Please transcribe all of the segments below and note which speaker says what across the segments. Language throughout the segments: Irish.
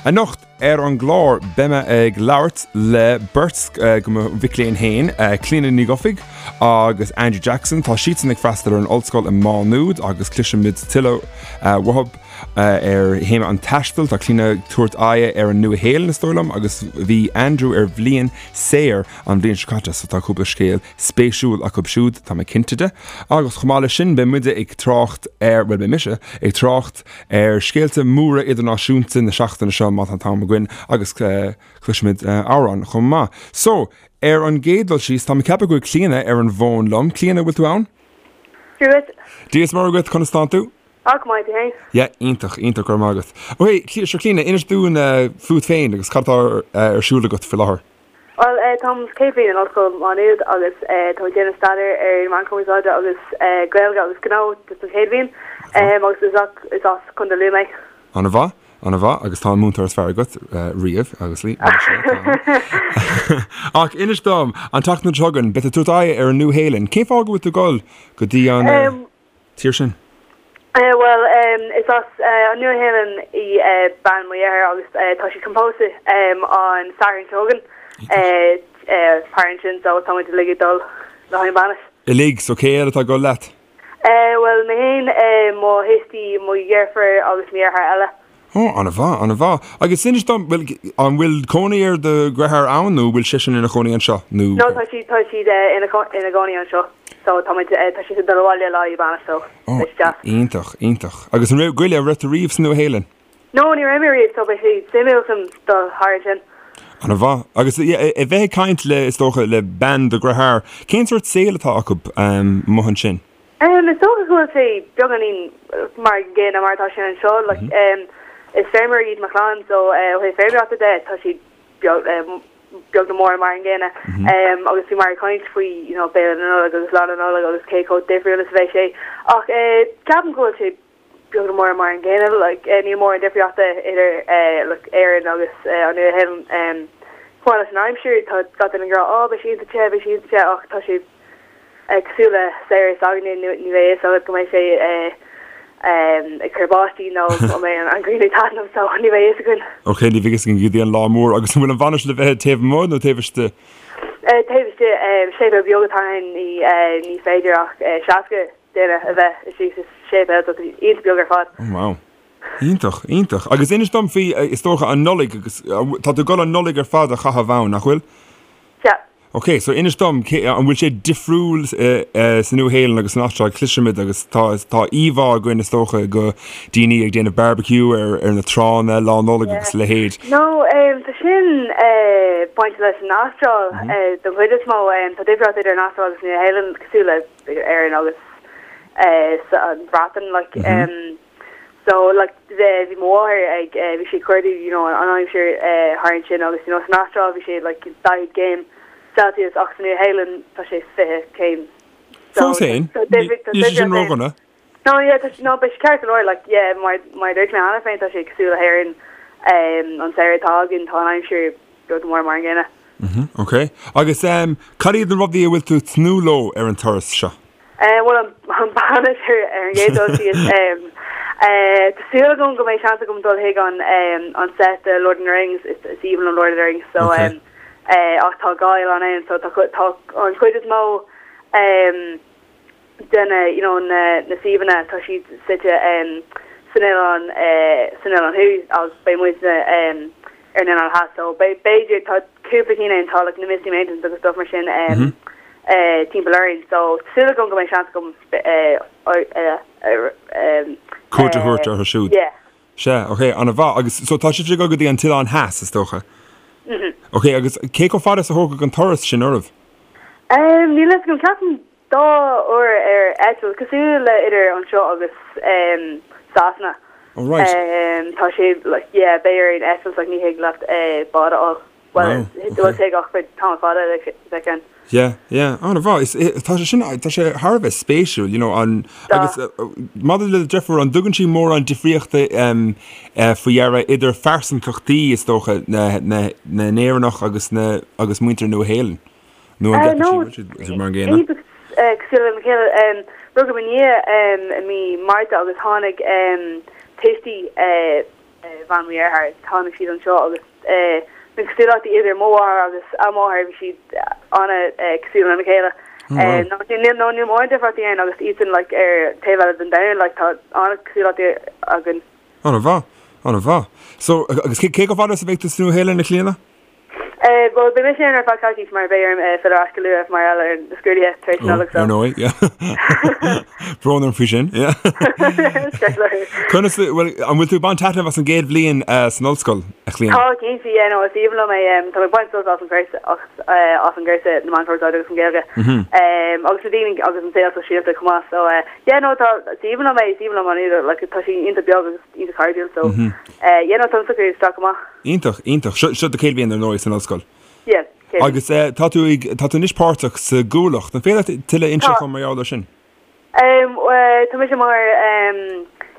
Speaker 1: Anocht ar an gclár beidh mé ag labhairt le beirt de mo mhic léinn féin, Clíona Ní Dhufaigh agus Andrew Jackson. Tá siadsan ag freastal ar an ollscoil i Má Nuad agus cloisfimid tuilleadh uathu ar théama an taistil. Tá Clíona ag tabhairt aghaidhe ar an Nua-Shéalainn is dóigh liom agus bhí Andrew ar bhliain saor an bhliain seo caite so tá cúpla scéal spéisiúil acu siúd, tá mé cinnte de. Agus chomh maith leis sin beidh muide ag trácht ar, bhuel beidh mise ag trácht ar scéalta móra idirnáisiúnta na seachtaine seo má tá an t-am againn agus cloisfimid amhrán chomh maith. So, ar an gcéad dul síos, tá mé ag ceapadh go bhfuil Clíona ar an bhfón liom. Clíona, bhfuil tú ann?
Speaker 2: Dia dhuit.
Speaker 1: Dia is Muire dhuit, conas tánn tú?
Speaker 2: Á, go maith, tú féin?
Speaker 1: Yeah, iontach, iontach, go raibh maith agat. Ok, sure Clíona, inis dúinn fút féin agus cad atá ar siúl agat faoi láthair.
Speaker 2: Bhuel, táim sa chéad bhliain in Ollscoil Mhá Nuad agus táim ag déanamh staidéir ar na Meáin Chumarsáide agus Gaeilge agus Gnó don chéad bhliain agus is is as Contae Lú mé.
Speaker 1: Ana mhaith, ana mhaith agus tá an múinteoir is fearr agat riamh agus lí Ach inis dom, an tseachtain seo chugainn, beidh tú ag tabhairt aghaidh ar an Nua-Shéalainn. Cén fáth go bhfuil tú ag dul go dtí an. tír sin?
Speaker 2: Bhuel, is as an Nua-Shéalainn í bean mo dheartháir agus tá siad chun pósadh an Satharn seo chugainn thar ansin so tá muid uilig ag dul le haghaidh an bainis.
Speaker 1: Uilig? So cé eile atá ag dul leat?
Speaker 2: Bhuel, mé féin, mo thuistí, mo dheirfiúr agus mo dheartháir eile.
Speaker 1: Ó, an-mhaith, an-mhaith. Agus inis dom, bhuel, an bhfuil cónaí ar do dheartháir ann nó bhfuil seisean ina chónaí anseo
Speaker 2: nó? No, tá siad, tá siad ina, ina gcónaí anseo. So tá muid, tá siad ag dul abhaile le haghaidh bainis so
Speaker 1: Ó, beidh sé deas. iontach, iontach. Agus an raibh, goile, an raibh tú riamh sa Nua-Shéalainn?
Speaker 2: No, ní raibh mé riamh so beidh sé suimiúil chun dul thar ansin.
Speaker 1: An-mhaith. Agus yeah, a bheith ag caint le, is dócha, le bean do dhearthár, cén sórt saoil atá acu amuigh ansin?
Speaker 2: Is dócha go bhfuil sé beagáinín mar an gcéanna mar atá sé anseo. Like, is feirmeoirí iad mo chlann so ó thaobh feirmeoireachta de tá siad beag beag nó mór mar an gcéanna. Agus bhí muid ag caint faoi you know béile na Nollag agus Lá na Nollag agus cé chomh difriúil is a bheidh sé. Ach ceapaim go bhfuil sé beag nó mór mar an gcéanna. Like, níl mórán difríochta idir like Éirinn agus an Nua-Shéalainn. Chomh maith leis an aimsir, tá gach duine ag rá, oh beidh sé iontach te, beidh sé iontach te ach tá sé Cosúil le samhradh s'againne, ní bheidh a fhios agat go mbeidh sé ag cur báistí nó go mbeidh an ghrian ag taitneamh, so ní bheidh a fhios againn.
Speaker 1: Ok, ní bheidh a fhios againn go dtí an lá mór. Agus an bhfuil an bhainis le bheith taobh amuigh nó taobh istigh?
Speaker 2: Taobh istigh. Séipéal beag atá ann, ní féidir ach 60 duine a bheith istigh sa séipéal, so tá sé iontach beag ar fad.
Speaker 1: Oh wow. Iontach, iontach. Agus inis dom faoi, is dócha, an Nollaig agus tá tú ag dul an Nollaig ar fad a chaitheamh ann, nach bhfuil?
Speaker 2: Sea.
Speaker 1: Ok, so inis dom, cé, an bhfuil sé difriúil sa Nua-Shéalainn agus san Astráil? Cloisimid agus tá, tá íomhá againn is dócha de daoine ag déanamh barbecue ar, ar na tránna Lá Nollag agus a leithéid.
Speaker 2: No, tá sin bainte leis an Astráil don chuid is mó. Tá difríocht idir an Astráil agus an Nua-Shéalainn cosúil le Éirinn agus an Bhreatain, like. So like bhí mo mháthair ag bhí sí ag cuardú you know an aimsir thar ansin agus you know san Astráil bhí sé like 40 céim Celsius ach sa Nua-Shéalainn tá sé 20 céim.
Speaker 1: So Fós féin, níl sé sin ródhona.
Speaker 2: No yeah tá no beidh sé ceart go leor like yeah mar mar a dúirt mé cheana féin tá sé cosúil le hÉirinn an samhradh atá againn tá an aimsir beag nó mór mar an gcéanna.
Speaker 1: Ok. Agus cad iad na rudaí a bhfuil tú ag tnúth leo ar an turas seo?
Speaker 2: Bhuel, an bainis ar an gcéad dul síos. Tá súil agam go mbeidh seans agam dul chuig an an set de Lord of the Rings, is aoibhinn liom Lord of the Rings, so ach tá dhá oileán ann, so tá tá an chuid is mó de na you know na na suíomhanna tá siad suite san oileán san oileán thuaidh agus beidh muidne ar an oileán theas so b'fhéidir tá cúpla cinn ann tá like na Misty Mountains agus stuff mar sin timpeall orainn so tá súil agam go mbeidh seans agam
Speaker 1: cuairt a thabhairt orthu siúd.
Speaker 2: Yeah.
Speaker 1: Sea, ok, an-mhaith. Agus so tá sibh ag dul go dtí an t-oileán theas, is dócha?
Speaker 2: Mhm.
Speaker 1: Ok, agus cé chomh fada is a thógfadh an turas sin oraibh?
Speaker 2: Níl a fhios agam, ceapaim Dá uair ar eitilt, cosúil le idir anseo agus Sasana.
Speaker 1: Oh right.
Speaker 2: Tá sé like yeah beidh orainn eitilt like ní thig leat bád a fháil. Well bhuel tig ach beidh tamall fada le bheith ann.
Speaker 1: Yeah yeah an-mhaith. Is tá sé sin tá sé thar a bheith spéisiúil you know an agus maidir le do dheirfiúr an dtugann sí mórán difríochta faoi deara idir phearsantachtaí is dócha na na na nÉireannach agus na agus muintir Nua-Shéalainn? Nó an
Speaker 2: gceapann sí go bhfuil siad mar an gcéanna? Iontach cosúil lena chéile. Rugadh mo nia i mí Márta agus tháinig tuistí. bhean mo dhearthár, tháinig siad anseo agus na cosúlachtaí idir mo mháthair agus a máthair, bhí siad an-cosúil lena chéile. Nó níl nó níl mórán difríochtaí ann agus iadsan like ar taobh eile den domhan like tá an-cosúlachtaí againn.
Speaker 1: An-mhaith, an-mhaith. So, agus cé chomh fada is a bheidh tú sa Nua-Shéalainn, a Chlíona?
Speaker 2: Bhuel, beidh mise ann ar feadh coicís mar beidh orm filleadh ar ais go luath mar gheall ar na scrúduithe tar éis Nollag so.
Speaker 1: Ar ndóigh, yeah. Brón orm faoi sin, yeah. Conas, bhuel, an bhfuil tú ag baint taitneamh as an gcéad bhliain san ollscoil, a Chlíona?
Speaker 2: Tá, cinnte, yeah, no, is aoibhinn liom é. Tá mé ag baint sult as an gcúrsa, as an gcúrsa na Meán Cumarsáide agus an Ghaeilge. Agus na daoine agus an saol sóisialta chomh maith, so yeah, no, tá, is aoibhinn liom é, is aoibhinn liom an Údar, like, tá sé iontach beag agus iontach cairdiúil, so yeah, no, táim socraithe isteach go maith.
Speaker 1: Iontach, iontach. Seo, seo do chéad bhliain ar ndóigh san ollscoil.
Speaker 2: Yeah,
Speaker 1: chéad bhliain. Agus eh, tá tú ag, tá tú anois páirteach sa gCuallacht. An féidir leat tuilleadh a inseacht
Speaker 2: Tá.
Speaker 1: dom mar gheall air sin?
Speaker 2: Em, eh, tá mise mar em,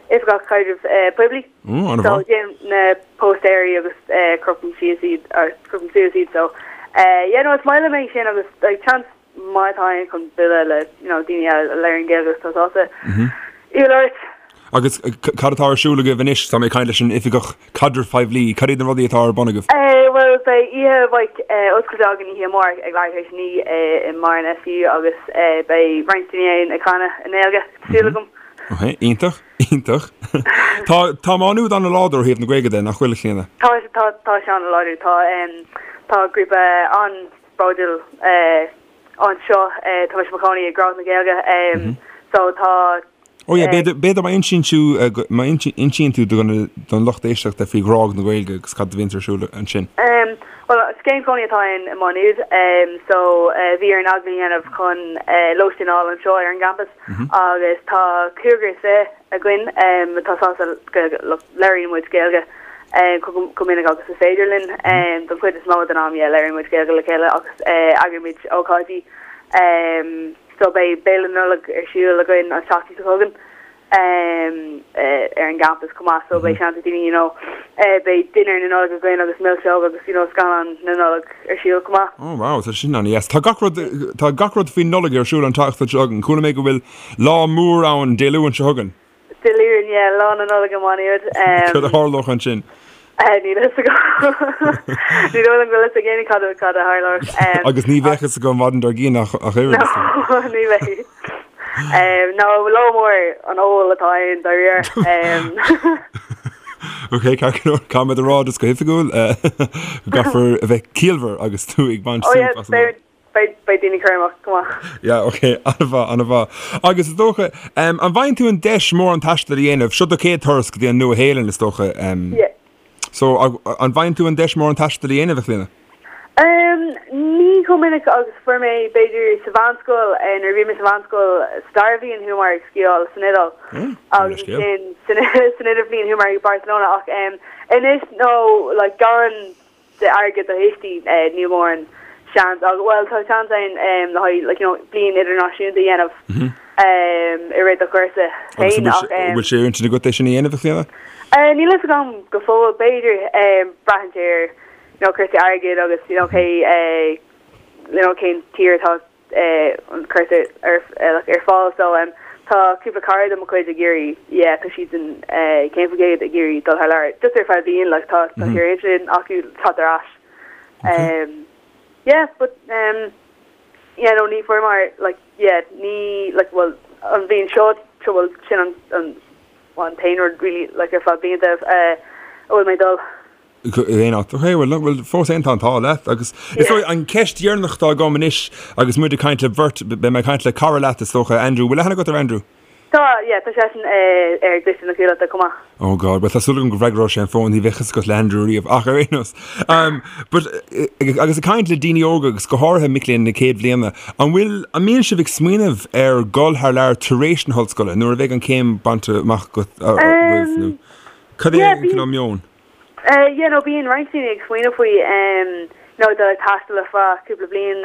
Speaker 2: oifigeach caidrimh eh, poiblí.
Speaker 1: Ó, an
Speaker 2: So
Speaker 1: mhaith.
Speaker 2: déanaim na póstaeirí agus eh, crochaim síos iad, or crochaim suas iad, so eh, yeah, no, is maith liom é sin agus like, chance maith atá ann chun bualadh le you know, daoine eile a labhraíonn Gaeilge agus tá sásta í a labhairt.
Speaker 1: Agus cad atá ar siúl agaibh anois? Tá mé ag caint leis an Oifigeach Caidrimh Poiblí. Cad iad na rudaí atá ar bun agaibh?
Speaker 2: Bhuel, beidh oíche bhig oscailte againn oíche amárach ag leathuair tar éis a 9 i mBarr an SU agus beidh roinnt daoine ann ag canadh i nGaeilge, tá súil agam.
Speaker 1: Ok, iontach, iontach. Tá, tá Má Nuad an-láidir ó thaobh na Gaeilge de, nach bhfuil, a Chlíona?
Speaker 2: Tá, tá, tá sé an-láidir. Tá, tá grúpa an-bhródúil anseo. Tá mise i mo chónaí i Grág na Gaeilge so tá.
Speaker 1: Oh yeah, b'fhéidir, b'fhéidir má insíonn tú, má insíonn tú don, don lucht éisteachta faoi Ghrág na Gaeilge agus cad a bhíonns ar siúl ansin.
Speaker 2: Bhuel, scéim cónaí atá ann i Má Nuad so bhí orainn agallamh a dhéanamh chun lóistín a fháil anseo ar an gcampas agus tá cúigear is fiche againn atá sásta Gaeilge, labhraíonn muid Gaeilge chomh minic agus is féidir linn. Don chuid is mó den am, yeah, labhraíonn muid Gaeilge le chéile agus eagraímid ócáidí. So beidh Béile Nollag ar siúl againn an tseachtain seo chugainn ar an gcampas chomh maith so beidh seans ag daoine you know beidh dinnéar na Nollag againn agus milseog agus you know scannán na Nollag ar siúl chomh maith.
Speaker 1: Oh wow, tá sin an-deas. Tá gach rud, tá gach rud faoin Nollaig ar siúl an tseachtain seo chugainn. Chuala mé go bhfuil lá mór ann Dé Luain seo chugainn.
Speaker 2: Dé Luain, yeah, Lá na Nollag i Má Nuad.
Speaker 1: Cad a tharlódh ansin?
Speaker 2: Níl a fhios agam. Ní dóigh liom go bhfuil a fhios ag éinne cad a cad a tharlódh.
Speaker 1: Agus ní bheadh a fhios agam an maidin dár gcionn ach ach oiread.
Speaker 2: No, ní bheidh. No, lá mór an óil atá ann dáiríre.
Speaker 1: Ok, ceart go leor, caithfidh muid a rá just go hoifigiúil go gcaithfear a bheith ciallmhar agus tú ag baint
Speaker 2: Oh yeah,
Speaker 1: súp as an
Speaker 2: beidh Beidh, beidh daoine cúramach go maith.
Speaker 1: Yeah, ok, an-mhaith, an-mhaith. Agus is dócha, um, an bhfaigheann tú an deis mórán taistil a dhéanamh? Seo do chéad turas go dtí an Nua-Shéalainn, is dócha. Um,
Speaker 2: Yeah.
Speaker 1: So, an bhfaigheann tú an deis mórán taistil a dhéanamh, a Chlíona?
Speaker 2: Um, ní chomh minic agus fuair mé, b'fhéidir, sa mheánscoil, eh, nuair a bhí mé sa mheánscoil, sa dara bhliain chuamar ag sciáil san Iodáil.
Speaker 1: Mm,
Speaker 2: Agus ansin, san, san idirbhliain chuamar ag Barcelona, ach um, anois, no, like, gan d'airgead do thuistí, níl mórán seans ach, bhuel, tá seans ann le haghaidh, like, you know, bliain idirnáisiúnta a dhéanamh i rith do chúrsa
Speaker 1: féin ach. Agus bhfuil sé ar intinn agat é sin a dhéanamh, a Chlíona?
Speaker 2: Níl a fhios agam go fóill, b'fhéidir, braitheann sé ar, you know, cúrsaí airgid agus, you know, cé, you know, cén tír atá an cúrsa ar ar fáil so tá cúpla cara de mo chuid ag iarraidh yeah tá siad in cén faoi gcéad ag iarraidh dul thar lear just ar feadh bliain like tá tá sé ar intinn acu teacht ar ais um yeah but um yeah no ní fuair mar like yeah ní like well an bhliain seo seo well sin an an an t-aon rud really like ar feadh blianta uh, a bhfuil mé dul
Speaker 1: Aon áit. Ok, bhuel, bhuel, fós féin tá an t-ádh leat agus is dóigh an ceist dheireanach atá agam anois agus muid ag caint le beirt, beidh mé ag caint le cara leat is dócha, Andrew, bhfuil aithne agat ar Andrew?
Speaker 2: Tá, yeah, tá seisean ar an gcoiste na Cuallachta chomh maith.
Speaker 1: Oh God, bhuel tá súil agam go bhfreagróidh sé an fón, ní bheadh fhios agat le Andrew riamh ach ar aon nós. Um, but, agus ag caint le daoine óga agus go háirithe mic léinn na céad bhliana, an bhfuil, an mbíonn sibh ag smaoineamh ar dhul thar lear tar éis na hollscoile nuair a bheidh an chéim bainte amach agat, agaibh nó cad é
Speaker 2: Yeah,
Speaker 1: an cineál meon?
Speaker 2: Yeah, no, bíonn roinnt daoine ag smaoineamh faoi, you know, dul ag taisteal ar feadh cúpla bliain,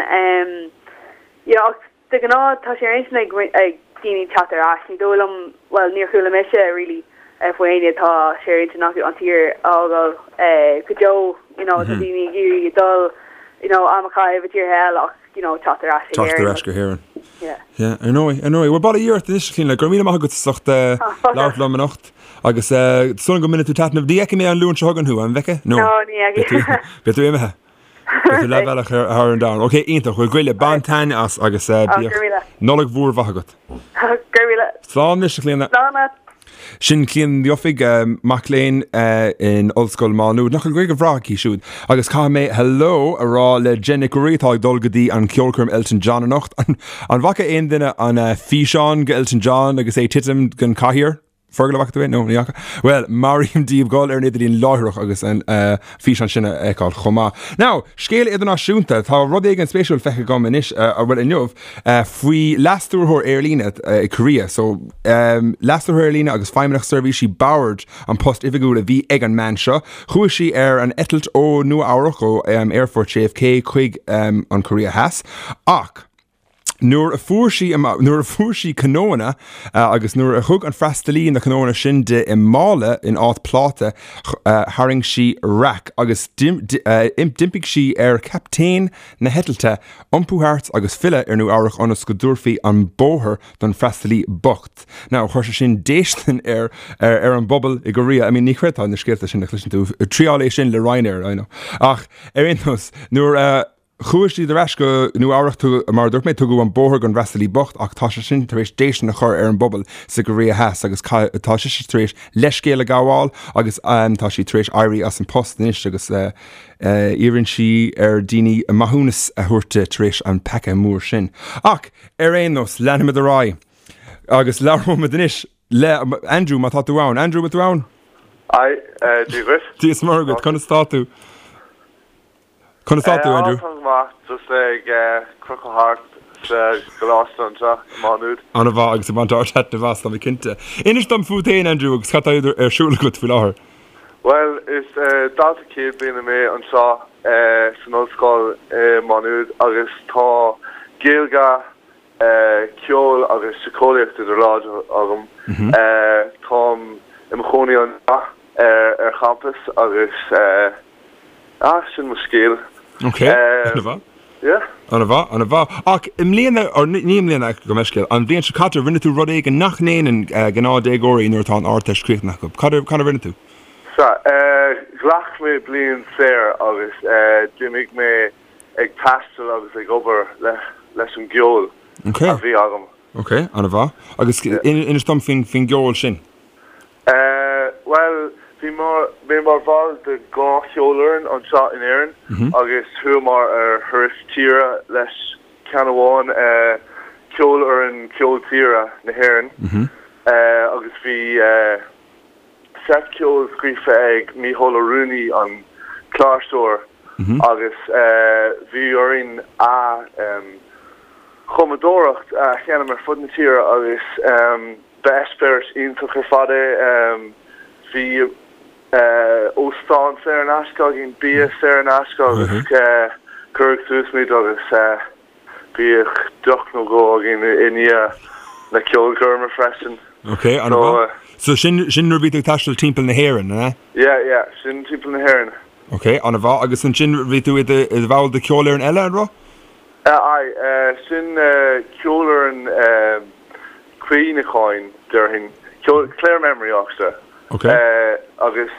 Speaker 2: you know, ach de ghnáth tá sé ar intinn ag ag daoine teacht ar ais. Ní dóigh liom, bhuel, níor chuala mise really faoi éinne atá sé ar intinn acu an tír a fhágáil go deo, you know, tá daoine ag iarraidh dul, you know, am a chaitheamh i dtíortha eile ach, you know, teacht ar ais
Speaker 1: chuig Éirinn. Teacht ar ais go hÉirinn. Yeah. Yeah, ar ndóigh, ar ndóigh. Bhuel, bail ó Dhia ort anois, a Chlíona, go raibh míle maith agat as ucht labhairt liom anocht. Agus súil agam go mbainfidh tú taitneamh. Ní fheicfidh mé an Luan seo chugainn thú, an bhfeicfidh?
Speaker 2: No, ní fheicfidh.
Speaker 1: Beidh tú imithe. Beidh tú leathbhealach thar an domhan. Ok, iontach. Bhuel, goile, bain taitneamh as agus bíodh Nollaig mhór mhaith agat.
Speaker 2: Go raibh míle.
Speaker 1: Slán anois, a Chlíona.
Speaker 2: Slán leat.
Speaker 1: Sin Clíona Ní Dhufaigh, mac léinn in Ollscoil Mhá Nuad. Nach bhfuil Gaeilge bhreá aici siúd? Agus caithfidh mé hello a rá le Jen Nic Ruairí atá ag dul go dtí an ceolchoirm Elton John anocht. An bhfaca aon duine an físeán go Elton John agus é ag titim den chathaoir? Fergal, an bhfaca tú é? No, ní fhaca. Bhuel, molaim daoibh dul ar an idirlíon láithreach agus an físeán sin a fheiceáil chomh maith. Now, scéal idirnáisiúnta, tá rud éigin spéisiúil feicthe agam anois, bhuel inniu, faoi leas-stiúrthóir aerlíne i Korea. So, leas-stiúrthóir aerlíne agus feidhmeannach seirbhísí boird an post oifigiúil a bhí ag an mbean seo. Chuaigh sí ar an eitilt ó Nua Eabhrac, ó Aerfort JFK chuig an Korea Theas, ach, Nuair a fuair sí nuair a fuair sí cnónna agus nuair a thug an freastalaí na cnónna sin di i mála in áit pláta, tharraing sí raic agus d'impigh sí ar chaptaen na heitilte iompú thart agus filleadh ar Nua Eabhrac ionas go dtabharfaí an bóthar don freastalaí bocht. Now, chuir sé sin déistin ar ar an bpobal i gCorea. I mean, ní chreidfeá na scéalta sin a chloiseann tú. Triáil é sin le Ryanair, I know. Ach ar aon nós, nuair a Chuaigh siad ar ais go Nua Eabhrac, mar a dúirt mé, tugadh an bóthar don fhreastalaí bocht ach tá sé sin tar éis déistin a chur ar an bpobal sa gCoiréa Theas agus tá sise tar éis leithscéal a ghabháil agus tá sí tar éis éirí as an post anois agus iarrann sí ar daoine maithiúnas a thabhairt di tar éis an peaca mór sin. Ach ar aon nós, leanfaimid ar aghaidh agus labhróimid anois le Andrew má tá tú ann. Andrew, bhfuil tú ann?
Speaker 3: Aye, Dia dhuit.
Speaker 1: Dia is Muire dhuit, conas tá tú? Conas tá tú, Andrew?
Speaker 3: Tá go maith, just ag crochadh thart sa gcoláiste anseo i Má Nuad.
Speaker 1: An-mhaith agus ag baint ard-taitneamh as, tá mé cinnte. Inis dom fút féin, Andrew, agus cad tá ar siúl agat faoi láthair?
Speaker 3: Bhuel, is dalta céad bliana mé anseo san ollscoil i Má Nuad agus tá Gaeilge, ceol agus síceolaíocht idir láimhe agam. Táim i mo chónaí anseo ar champas agus Ah, sin mo scéal.
Speaker 1: Ok, an-mhaith.
Speaker 3: Yeah.
Speaker 1: An-mhaith, an-mhaith. Ach i mbliana, or ní i mbliana, gabh mo leithscéal, an bhliain seo caite, rinne tú rud éigin nach ndéanann gnáthdhéagóirí nuair atá an Ardteist críochnaithe acu. Cad a rinne tú?
Speaker 3: Sea, ghlac mé bliain saor agus d'imigh mé ag taisteal agus ag obair leis an gceol a bhí agam.
Speaker 1: Ok, an-mhaith. Agus inis dom faoin gceol sin.
Speaker 3: Bhuel, bhí mé mar bhall de dhá cheolfhoireann anseo in Éirinn agus chuamar ar thuras tíre leis ceann amháin, Ceolfhoireann Ceol Tíre na hÉireann, agus bhí seit ceoil scríofa ag Mícheál Ó Ruanaí, an cláirseoir, agus bhí orainn a chumadóireacht a sheinm ar fud na tíre agus Ba eispéireas iontach ar fad é. Bhí óstán saor in aisce againn, bia saor in aisce agus cuireadh suas muid agus bhíodh deoch nó dhó againn i ndiaidh na ceolchoirme freisin.
Speaker 1: Ok, an-mhaith. So sin sin nuair a bhí tú ag taisteal timpeall na hÉireann, an ea?
Speaker 3: Yeah, yeah, sin timpeall na hÉireann.
Speaker 1: Ok, an-mhaith. Agus ansin bhí tú i do bhall de cheolfhoireann eile, an raibh?
Speaker 3: Aye, sin ceolfhoireann cuimhneacháin, déarfainn, Clare Memory Orchestra.
Speaker 1: Ok.
Speaker 3: Agus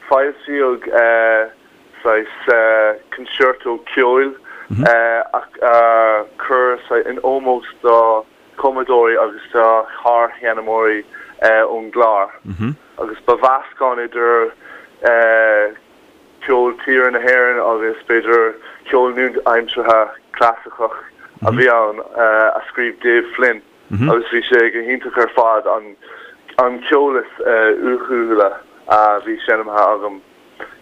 Speaker 3: foilsíodh saghas concerto ceoil a cuireadh in ómós do chumadóirí agus do shársheinnmeoirí ón gClár. Agus ba mheascán idir ceol tíre na hÉireann agus b'fhéidir ceol nua-aimseartha clasaiceach a bhí ann a scríobh Dave Flynn agus bhí sé go hiontach ar fad, an ceol is uathúla a bhí seinmthe agam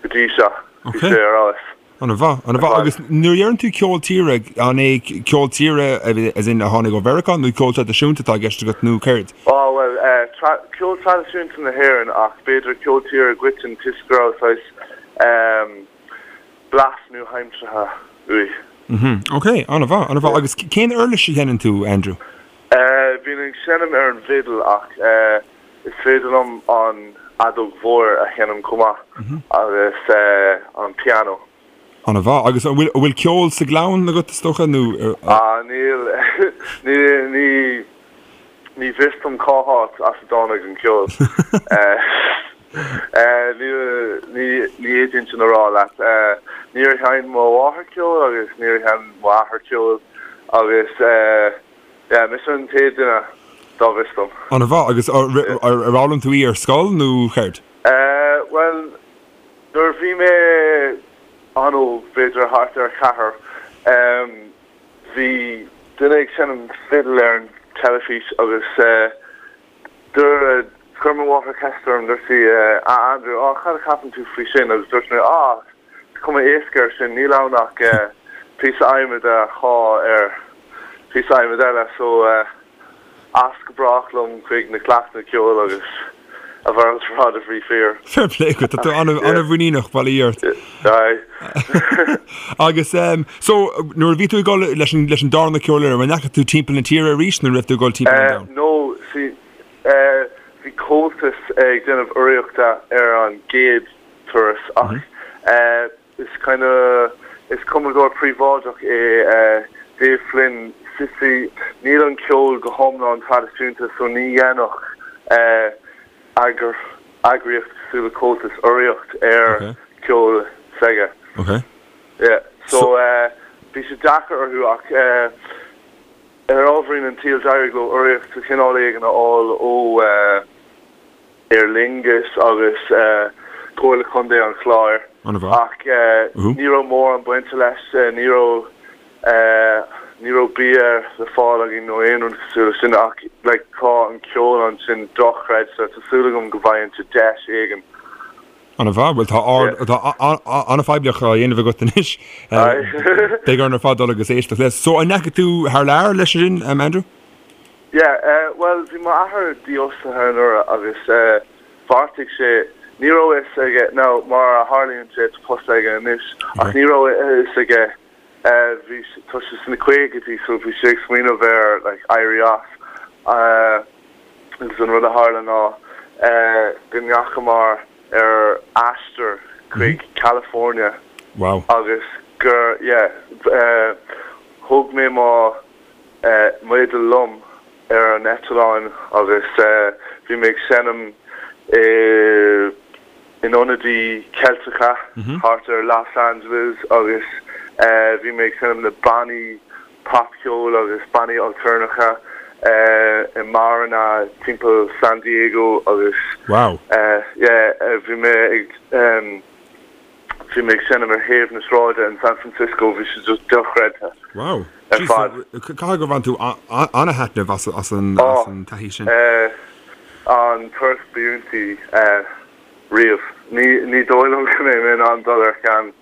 Speaker 3: go dtí seo, bhí sé ar fheabhas.
Speaker 1: An-mhaith, an-mhaith. Agus nuair a deireann tú ceol tíre, an é ceol tíre as in a tháinig ó Mheiriceá nó ceol traidisiúnta atá i gceist agat nó céard?
Speaker 3: Á, bhuel, ceol traidisiúnta na hÉireann ach b'fhéidir ceol tíre i gcoiteann toisc go raibh saghas blas nua-aimseartha uaidh.
Speaker 1: Mhm, ok, an-mhaith, an-mhaith. Agus cén uirlis a sheinneann tú, Andrew?
Speaker 3: Bím ag seinm ar an bhfidil ach is féidir liom an fheadóg mhór a sheinm chomh maith agus an pianó.
Speaker 1: An-mhaith. Agus an bhfuil, an bhfuil ceol sa gclann agat, is dócha, nó?
Speaker 3: Ah, níl, ní, ní. Ní bhfios dom cá háit as a dtáinig an ceol. Ní fhéadfainn sin a rá leat. Níor sheinn mo mháthair ceol agus níor sheinn m'athair ceol agus yeah, mise an chéad duine dá bhfios dom.
Speaker 1: An-mhaith. Agus ar fhoghlaim tú í ar scoil nó céard?
Speaker 3: Bhuel, nuair a bhí mé an-óg, b'fhéidir thart ar cheathair, Bhí duine ag seinm fidil ar an teilifís agus dúirt, chuir mo mháthair ceist orm, dúirt sí, a Andrew, á, cad a cheapann tú faoi sin? Agus dúirt mé, á, is cuma éasca air sin, níl ann ach píosa adhmaid a shá ar phíosa adhmaid eile, so. As go brách liom chuig na cleachtanna ceoil agus a mhalairt ar fad a bhí fíor.
Speaker 1: Fair play agat, tá tú an-mhuiníneach, bail ó Dhia ort.
Speaker 3: Aye.
Speaker 1: Agus so nuair a bhí tú ag dul leis an leis an darna ceolfhoireann, an ndeachaigh tú timpeall na tíre arís nó an raibh tú ag dul timpeall an
Speaker 3: domhain? No, see, bhí Comhaltas ag déanamh urraíochta ar an gcéad turas ach Is kind of, is cumadóir príobháideach é Dave Flynn. See, níl an ceol go hiomlán traidisiúnta so ní dhéanfadh eagraíocht cosúil le Comhaltas urraíocht ar cheol s'aige.
Speaker 1: Okay.
Speaker 3: Yeah. So bhí sé deacair orthu ach ar ámharaí an tsaoil d'éirigh leo urraíocht de chineál éigin a fháil ó Aer Lingus agus Comhairle Contae an Chláir ach ní raibh mórán bainte leis, ní raibh ní raibh bia le fáil againn nó aon rud cosúil leis sin ach like tá an ceol ansin dochreidte, tá súil agam go bhfaighinnse deis éigin.
Speaker 1: An-mhaith, bhuel tá ard tá an-phoiblíocht á dhéanamh agat anois. Beidh orainn ar fad dul agus éisteacht leis. So an ndeachaigh tú thar lear leis sin, Andrew?
Speaker 3: Yeah, eh, bhuel, bhí m'athair dífhostaithe anuraidh agus eh, bheartaigh sé, ní raibh a fhios aige, now mar a tharlaíonn sé tá post aige anois, ach ní raibh a fhios aige, eh, bhí, tá sé sna caogaidí so bhí sé ag smaoineamh ar like éirí as, eh, agus an rud a tharla ná eh, go ndeachamar ar aistear chuig California
Speaker 1: Wow.
Speaker 3: agus gur, yeah, eh, thóg mé mo, m'fhidil liom ar an eitleán agus bhí mé ag seinm in ionadaí Ceilteacha thart ar Los Angeles agus bhí mé ag seinm le bannaí popcheoil agus bannaí alturnacha i mbeáranna timpeall San Diego agus
Speaker 1: Wow.
Speaker 3: yeah bhí mé ag Bhí mé ag seinm ar thaobh na sráide in San Francisco, bhí sé just dochreidte
Speaker 1: Wow. ar fad. Caithfidh gur bhain tú an-thaitneamh as an taithí sin.
Speaker 3: An turas ba iontaí riamh. Ní dóigh liom go mbeidh mé in ann dul ar cheann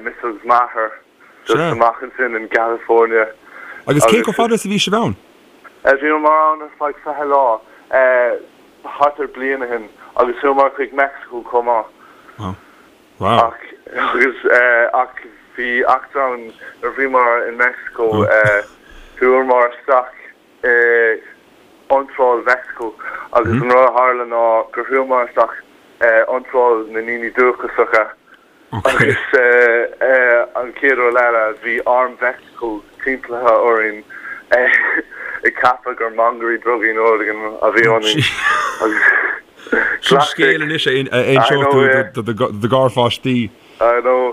Speaker 3: mise agus m'athair just amach ansin in California.
Speaker 1: Agus cé chomh fada is a bhí sibh ann?
Speaker 3: Bhíomar ann ar feadh 20 lá, thart ar bliain ó shin, agus chuamar chuig Meicsiceo chomh maith.
Speaker 1: Wow. Wow.
Speaker 3: Ach, agus, ach bhí eachtra ann nuair a bhíomar in Meicsiceo, chuamar isteach i iontráil Mheicsiceo agus an rud a tharla ná gur chuamar isteach iontráil na ndaoine dúchasacha Agus an chéad rud eile, bhí arm Mheicsiceo timpeallaithe orainn ag ceapadh gur mangairí drugaí nó rud éigin a bhí ionainn.
Speaker 1: Sin scéal anois a inseodh tú do do gharpháistí.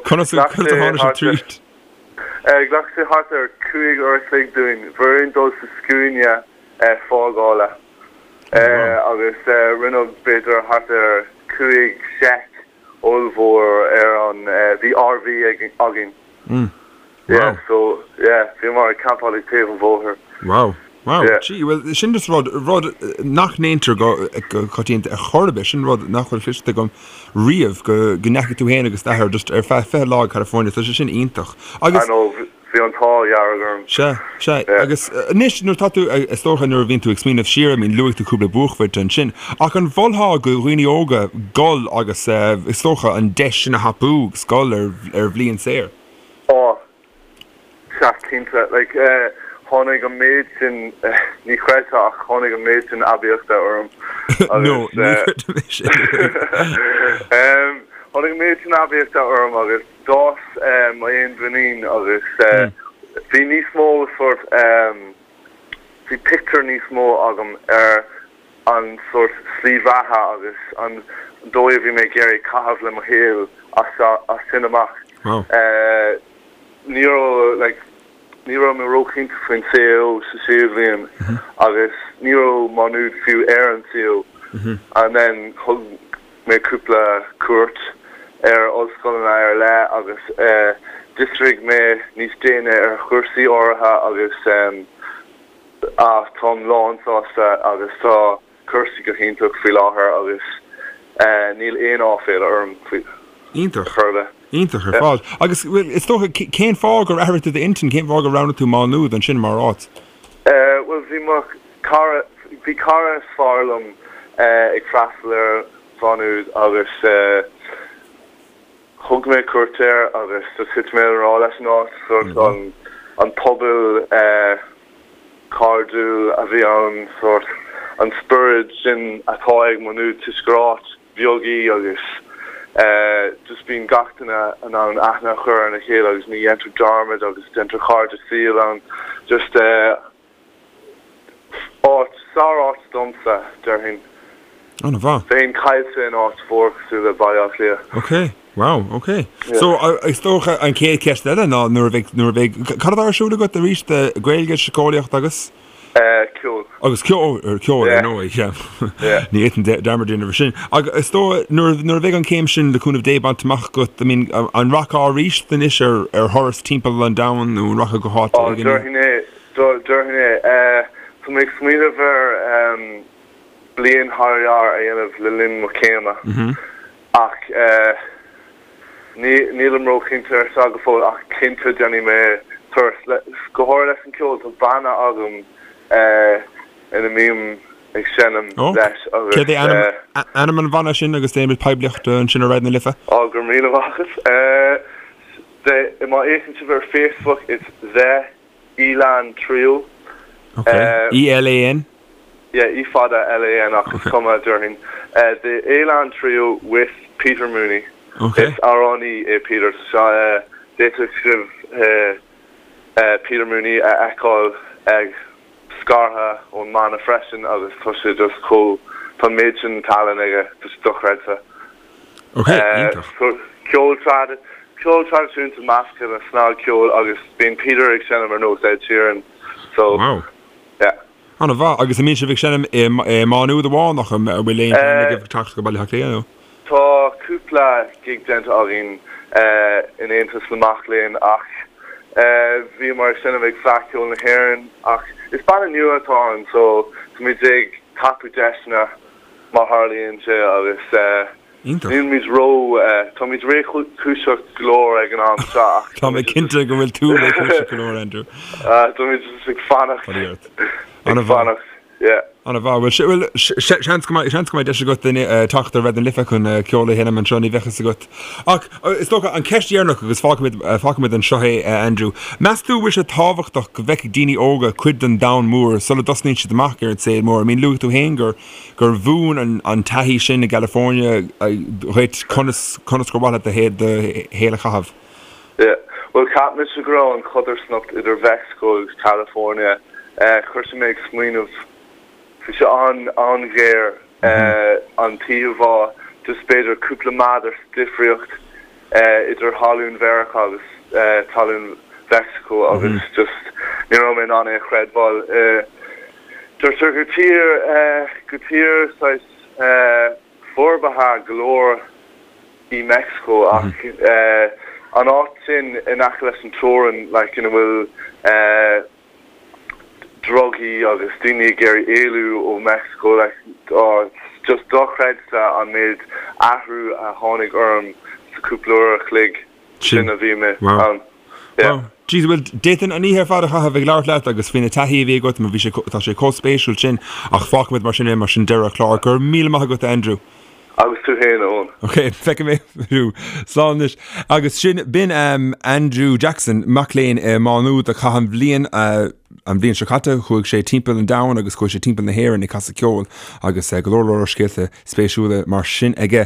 Speaker 1: Conas a tháinig sibh tríd?
Speaker 3: Ghlac sé thart ar 5 uair a chloig dúinn. Bhí orainn dul sa scuaine fágála agus rinneadh b'fhéidir thart ar 5 seic ollmhór ar an, bhí RV againn.
Speaker 1: Mm.
Speaker 3: Yeah, so, yeah, bhíomar ag campáil ag taobh an bhóthair.
Speaker 1: Wow. Wow. Yeah. Gee, well, sin just rud, rud nach ndéantar go, go coitianta ar chor ar bith, sin rud nach bhfuil cloiste agam riamh, go, go ndeachaigh tú féin agus d'athair just ar feadh 20 lá go California, tá sé sin iontach.
Speaker 3: Agus. I know, Bhí an t-ádh dhearg orm.
Speaker 1: Sea, sea. Agus anois, nuair atá tú, is dócha nuair a bhíonn tú ag smaoineamh siar, I mean, luaigh tú cúpla buaicphointe ansin, ach an mholfá do dhaoine óga dul agus, is dócha, an deis sin a thapú agus dul ar, ar bhliain saor?
Speaker 3: Á, sea, cinnte. Like, tháinig an méid sin, ní chreidfeá ach tháinig an méid sin aibíochta orm
Speaker 1: agus. No, ní chreidim é sin.
Speaker 3: Tháinig an méid sin aibíochta orm agus. D'fhás m'fhéinmhuinín agus bhí níos mó sórt. bhí pictiúr níos mó agam ar an sórt slí bheatha agus an dóigh a bhí mé ag iarraidh caitheamh le mo shaol as sin amach. Ní raibh like ní raibh mé róchinnte faoin CAO sa séú bhliain agus ní raibh Má Nuad fiú ar an CAO. And then thug mé cúpla cuairt ar ollscoileanna ar leith agus d'fhiosraigh mé níos déine ar chúrsaí áirithe agus táim lánsásta agus tá cúrsaí go hiontach faoi láthair agus níl aon áiféala orm faoi
Speaker 1: Iontach. chor ar bith. Iontach ar fad. Agus bhuel is dócha cén fáth gur athraigh tú d'intinn, cén fáth gur roghnaigh tú Má Nuad ansin mar áit?
Speaker 3: Bhuel bhí mo cara, bhí cara is fearr liom ag freastal ar Mhá Nuad agus thug mé cuairt air agus just thit mé i ngrá leis an áit, sórt an an pobal cairdiúil a bhí ann, sórt an spiorad sin atá ag Má Nuad toisc gur áit bheag í agus just bíonn gach duine in ann aithne a chur ar a chéile agus ní dhéantar dearmad agus déantar cairde saoil ann. Just áit, sár-áit domsa, déarfainn.
Speaker 1: An-mhaith.
Speaker 3: Bheinn caillte in áit mhór cosúil le Baile Átha Cliath.
Speaker 1: Ok, wow, ok. So, is dócha an chéad cheist eile ná nuair a bheidh, nuair a bheidh, cad atá ar siúl agat arís, Gaeilge, Síceolaíocht agus?
Speaker 3: Ceol.
Speaker 1: Agus ceol, ceol ar ndóigh, yeah. Ní fhéadfainn dearmad a dhéanamh air sin. Agus is dóigh, nuair, nuair a bheidh an chéim sin le cúnamh Dé bainte amach agat, I mean, an rachfá arís anois ar, ar thuras timpeall an domhain nó an rachfá go háit
Speaker 3: éigin? Déarfainn é, déarfainn é. Tá mé ag smaoineamh ar bliain thar lear a dhéanamh le linn mo chéime ach Nílim róchinnte ar seo go fóill ach cinnte déanfaidh mé turas, go háirithe leis an gceol. Tá banna agam ina mbím ag seinm leis
Speaker 1: agus. Céard é ainm an bhanna sin agus déanfaimid poiblíocht ansin ar Raidió na Life?
Speaker 3: Á, go raibh míle maith agat. Má fhéachann sibh ar Facebook, it's The Elan Trio.
Speaker 1: Ok. E-L-A-N?
Speaker 3: Yeah, E fada L-A-N ach is cuma, déarfainn. The Elan Trio with Peter Mooney.
Speaker 1: Ok.
Speaker 3: Is amhránaí é Peter so d'fhéadfadh sibh Peter Mooney a fheiceáil ag scartha ón mbanna freisin agus tá sé just chomh, tá an méid sin tallann aige, tá sé dochreidte.
Speaker 1: Ok, iontach.
Speaker 3: Ceol trad, ceol traidisiúnta measctha le snagcheol agus bíonn Peter ag seinm ar nós Ed Sheeran so
Speaker 1: Wow.
Speaker 3: yeah.
Speaker 1: An-mhaith. Agus an mbíonn sibh ag seinm i Má Nuad amháin ach an bhfuil aon phlean agaibh teacht go Baile Átha Cliath nó?
Speaker 3: Tá cúpla gig déanta againn in Aontas na Mac Léinn ach bhíomar ag seinm ag Fleadh Cheoil na hÉireann ach is banna nua atá ann so táimid ag tapú deiseanna má tharlaíonn sé agus
Speaker 1: Iontach.
Speaker 3: nílimid ró, táimid réchúiseach go leor ag an am seo ach
Speaker 1: Tá mé cinnte go bhfuil tú réchúiseach go leor, Andrew.
Speaker 3: Táimid just ag fanacht, ag fanacht, yeah.
Speaker 1: An-mhaith. Bhuel, bhuel, seans go mbeidh, seans go mbeidh deis agat teacht ar Raidió na Life chun ceol a sheinm anseo, ní bheadh fhios agat. Ach is dócha, an cheist dheireanach agus fágfaimid, fágfaimid anseo é, Andrew. Meas tú an bhfuil sé tábhachtach go bhfeicfidh daoine óga cuid den domhan mór sula dtosnaíonn siad amach ar an saol mór? I mean, luaigh tú féin gur, gur mhúin an, an taithí sin i gCalifornia dhuit conas, conas gur mhaith leat do, do shaol a chaitheamh.
Speaker 3: Yeah. Bhuel, cheap mise go raibh an chodarsnacht idir Mheicsiceo agus California, chuir sé mé ag smaoineamh, bhí sé an-ghéar, an t-íomhá, just b'fhéidir cúpla méadar sa difríocht idir thalún Mheiriceá agus talún Mheicsiceo agus just ní raibh mé in ann é a chreidbheáil. Deirtear gur tír, gur tír saghas forbartha go leor í Meicsiceo ach an áit sin in aice leis an teorainn like ina bhfuil drugaí agus daoine ag iarraidh éalú ó Meicsiceo like oh it's just dochreidte an méid athrú a tháinig orm sa cúpla uair a chloig sin a bhí mé ann.
Speaker 1: Yeah. Wow. Jeez, bhuel, d'fhéadfainn an oíche ar fad a chaitheamh ag labhairt leat agus faoi na taithí a bhí agat, mar bhí sé, tá sé chomh spéisiúil sin, ach fágfaimid mar sin é, mar sin deireadh an chláir. Go raibh míle maith agat, a Andrew.
Speaker 3: Agus tú féin, a Eoin.
Speaker 1: Ok, feicfidh mé thú. Slán anois. Agus sin, b'in Andrew Jackson, mac léinn i Má Nuad a chaith an bhliain, an bhliain seo caite, chuaigh sé timpeall an domhain agus chuaigh sé timpeall na hÉireann ag casadh ceoil agus go leor leor scéalta spéisiúla mar sin aige.